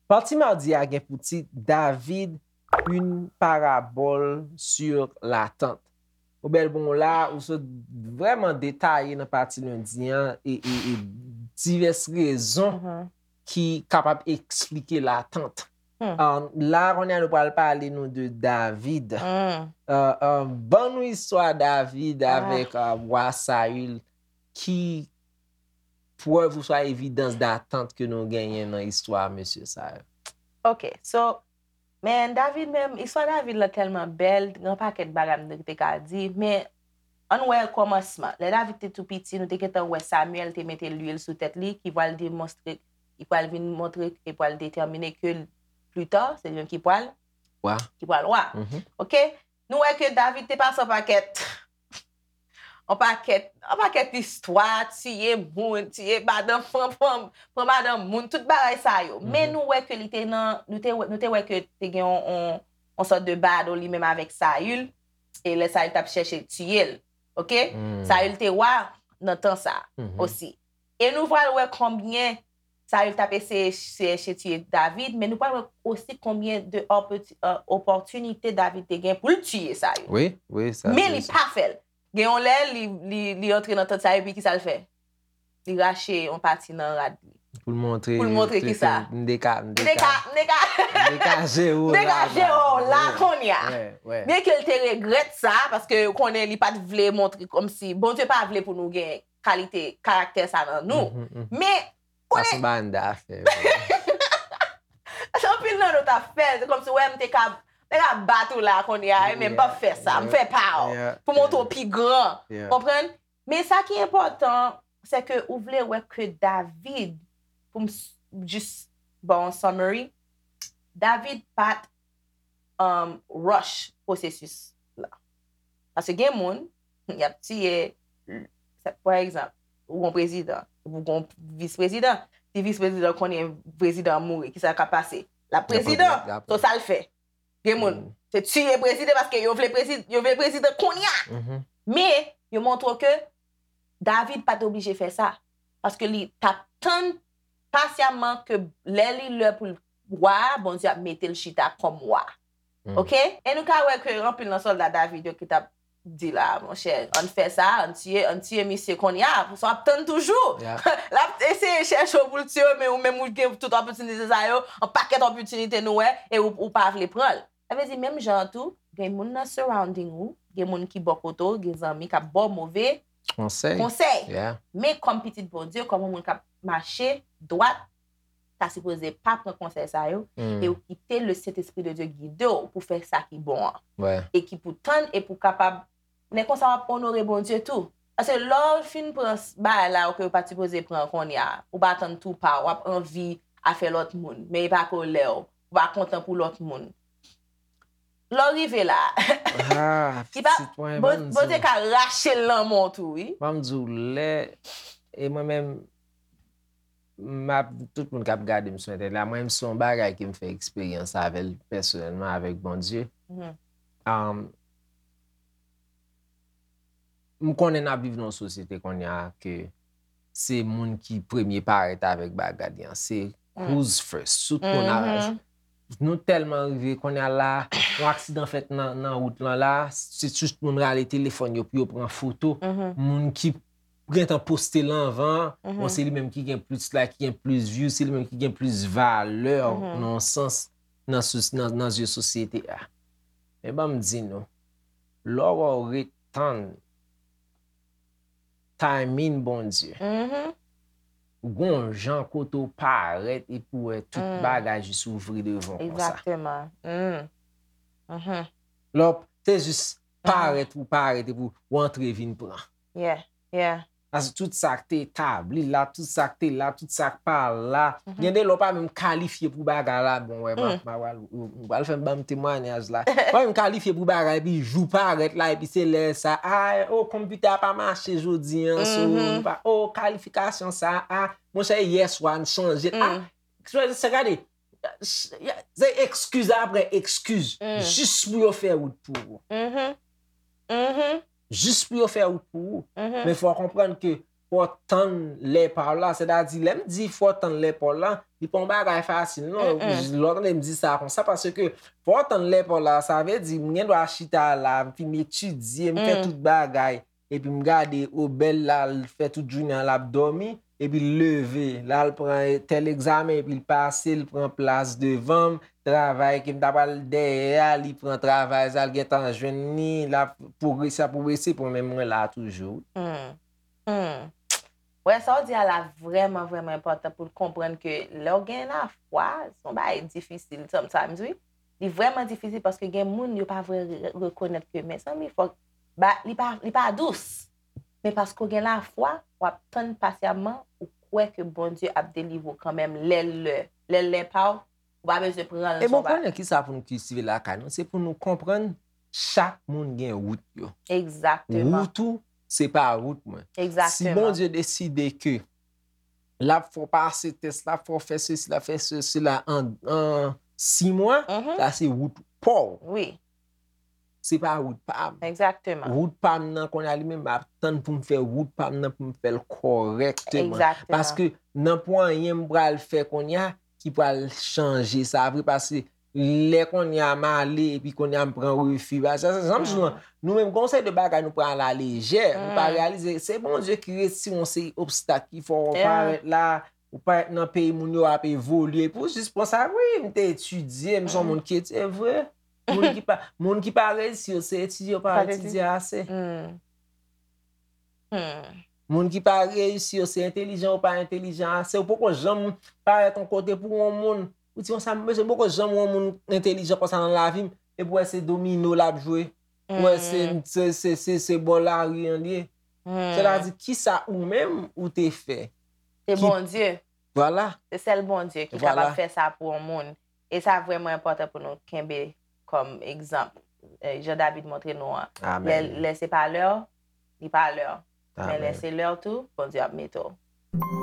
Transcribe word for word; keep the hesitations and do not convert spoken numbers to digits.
Pati madi a gen pou tit David, une parabole sur l'attente. Ou bèl bon la, ou sot vrèman detaye nan pati lendi an e, e, e divès rezon ki kapab eksplike latant. Um, la, kounye a nou pral pale nou de David. Uh, um, ban nou istwa David avèk uh, wa Sayil. Ki prèv oswa evidans datant ke nou genyen nan istwa mesye sa yo? Ok, so, men David menm, istwa David lan tèlman bèl, gen yon pakèt bagay m te ka di, men ann wè kòmansman. Lè David te tou piti, nou te gentan wè Samyèl te mete lwil sou tèt li, ki pral demonstre, ki pral vin montre, ki pral detèmine ke pli ta, se li menm ki pral, Wa. ki pral wa. Mhm. Ok? Nou wè ke David te pase yon pakèt yon pakèt, yon pakèt istwa, tiye moun, tiye madanm, pran, pran, pran madanm moun, tout bagay sa yo. Men nou wè ke li te nan, nou te, wè- nou te wè ke te gen yon, yon, yon sòt de battle li menm avèk Sayil, e lè Sayil t ap chèche tiye l, ok? Sayil te wa nan tan sa osi. E nou pral wè konbyen Sayil t ap eseye chèche tiye David, men nou pral wè osi konbyen de opòti- euh, opòtinite David te gen pou l tiye Sayil. Wi, wi, sa Men li pa fè l. Gen yon lè, li, li, li antre nan tant Sayil, epi kisa l fè? Li rache yon pati nan rad li. Pou l montre. Pou l montre kisa? M te ka, m te ka, m te ka, m te ka jere w la. M te ka jere w la kounye a. Wè, wè. Byen ke l te regrèt sa, paske konnen li pa t vle montre kòmsi, Bondye pa vle pou nou gen kalite, karaktè sa nan nou. Mhm, mhm. Men, Sa se yon bagay m ta fè. Anpil nan nou t ap fè l, se kòmsi, wè, m te ka, m te ka bat ou la kounye a, men m p ap fè sa, m fè pa w, pou montre w pi gran. Konprann? Men sa ki enpòtan, se ke ou vle wè ke David, pou m s- jis ba w yon summary, David pa t um, rush pwosesis la. Paske gen moun, y ap tiye, pa egzanp, ou gon prezidan, ou gon vis prezidan, si vis prezidan konnen prezidan an mouri, kisa k ap pase? L ap prezidan, so sa l fè. Gen moun, se tiye prezidan paske yo vle prezidan, yo vle prezidan kounye a. Men, yo montre w ke David pa t oblije fè sa. Paske li t ap tann pasyaman ke lè li lè pou l wa, Bondye ap mete l chita kòm wa. Ok? E nou ka wè ke anpil nan sòlda David yo ki t ap di la, monchè, ann fè sa, ann tiye, ann tiye misye kounye a, sa w ap tann toujou. L ap eseye chèche w pou l tiye w, men ou menm ou gen tout opòtinite sa yo, yon pakèt opòtinite nou wè, e ou, ou pa vle pran l. Sa vle di, menm jan an tou, gen moun nan surrounding ou, gen moun ki bò kote w, gen zanmi k ap ba w move konsèy. Men kòm pitit Bondye, kòm yon moun k ap mache dwat, ta sipoze pa pran konsèy sa yo, e ou kite le Sentespri de Dye gide w pou fè sa ki bon an. E ki pou tann e pou kapab, men konsa w ap onore Bondye tou. Paske lè w fin pran bagay la yo ke w pa t sipoze pran kounye a, ou pa tann tou pa w, w ap anvi afè lòt moun, men e pa kolè w, ou pa kontan pou lòt moun. Lè w rive la, Ah, pitit mwen, ban m di w. Bondye ka rache l nan men w tou, wi. Ban m di w, lè, e mwen menm, m ap, tout moun k ap gade m sou entènèt la, mwen menm se yon bagay ke m fè eksperyans avè l pèsonèlman avèk Bondye. Um, m konnen n ap viv nan yon sosyete kounye a ke se moun ki premye parèt avèk bagay li an. Se who's first. Tout moun a, nou tèlman rive kounye a la, yon aksidan fèt nan, nan wout lan la, se tout moun rale telefòn yo pou yo pran foto. Moun ki gentan poste l anvan, bon, se li menm ki gen plis like, ki gen plis view, se li menm ki gen plis valè nan yon sans nan, sou- nan, nan zye sosyete a. Men ban m di nou, lè w ret tann timing Bondye, gon jan kote w parèt epi w wè tout bagay jis ouvri devan w konsa. Egzakteman. Lè w, se jis parèt ou parèt epi w antre vin pran. Yeah, yeah. Paske tout sa k te etabli la, tout sa k te la, tout sa k pa la. Gen de lè w pa menm kalifye pou bagay la. Bon, wè, m ap, m ap pral, ou pral fè m ban m temwayaj la. W pa menm kalifye pou bagay, epi jou parèt la, epi se lè sa, a, o, konpitè a pa mache jodi an, so, pa, o, kalifikasyon sa, a, monchè, yèswa, n chanje, a, sa, sa, gade, Se ekskiz apre ekskiz. Jis pou yo fè wout pou ou. Jis pou yo fè wout pou ou. Men fò w konprann ke fò w tann lè pa w la. Sètadi, lè m di fò w tann lè pa w la, li pa yon bagay fasil, non. Lè w tande m di sa konsa, paske fò w tann lè pa w la, sa vle di, m gen dwa chita la, m fin etidye, m fè tout bagay. Epi m gade, o, Bèl la, l fè tout jounen an, l ap dòmi, epi l leve, l al pran tèl egzamen, epi l pase, l pran plas devan m, travay ke m ta pral dèyè a, li pran travay sa, l gentan jwenn li, l ap pwogrese, ap pwogrese, pou men mwen la toujou. Wè, sa w di a la vrèman, vrèman enpòtan pou l konprann ke lè w gen lafwa, se yon bagay difisil sometimes, wi. Li vrèman difisil paske gen moun yo pa vle rekonèt ke, mezanmi, fòk, li pa, li pa dous. Men paske w gen lafwa, w ap tann pasyamman, ou kwè ke Bondye ap delivre w kanmenm lè l lè. Lè l lè pa w, ou pa bezwen pran l. E bon, konnen kisa pou nou kiltive lakay nou, se pou nou konprann chak moun gen wout yo. Egzakteman. Wout ou, se pa wout mwen. Egzakteman. Si Bondye deside ke l ap fè w pase tès la, fè w fè sesi la, fè sesi la an, an sis mwa, sa se wout pa w. Wi. Se pa wout pa m. Egzakteman. Wout pa m nan kounye a li menm, m ap tann pou m fè wout pa m nan pou m fè l kòrèkteman. Egzakteman. Paske nan pwen anyen m pral fè kounye a ki pral chanje sa vre, paske lè kounye a m ale epi kounye a m pran refi. Paske sa, sa, sa, sa, nou menm, gen yon seri de bagay nou pran alalejè, nou pa reyalize. Se Bondye ki retire yon seri obstak ki fè w parèt la, ou parèt nan peyi moun yo ap evolye. Epi w jis pran sa, wi, m te etidye, m se yon moun ki etidye vre. Moun ki pa, moun ki pa reyisi yo, se etidye yo pa etidye ase. Moun ki pa reyisi yo, se entelijan yo pa entelijan ase. Ou poko janm parèt yon kote pou yon moun, ou di konsa, mesye, m poko janm wè yon moun entelijan konsa nan lavi m, epi w wè se domino l ap jwe. Ou wè se, se, se, se, se bò lari an l ye. Sètadi, kisa ou menm ou te fè? Se Bondye. Vwala. Se sèl Bondye ki kapab fè sa pou yon moun. E sa vrèman enpòtan pou nou kenbe kòm egzanp. Jan David montre nou an. Lè, lè se pa lè w, li pa lè w. Men lè se lè w tou, Bondye ap mete w.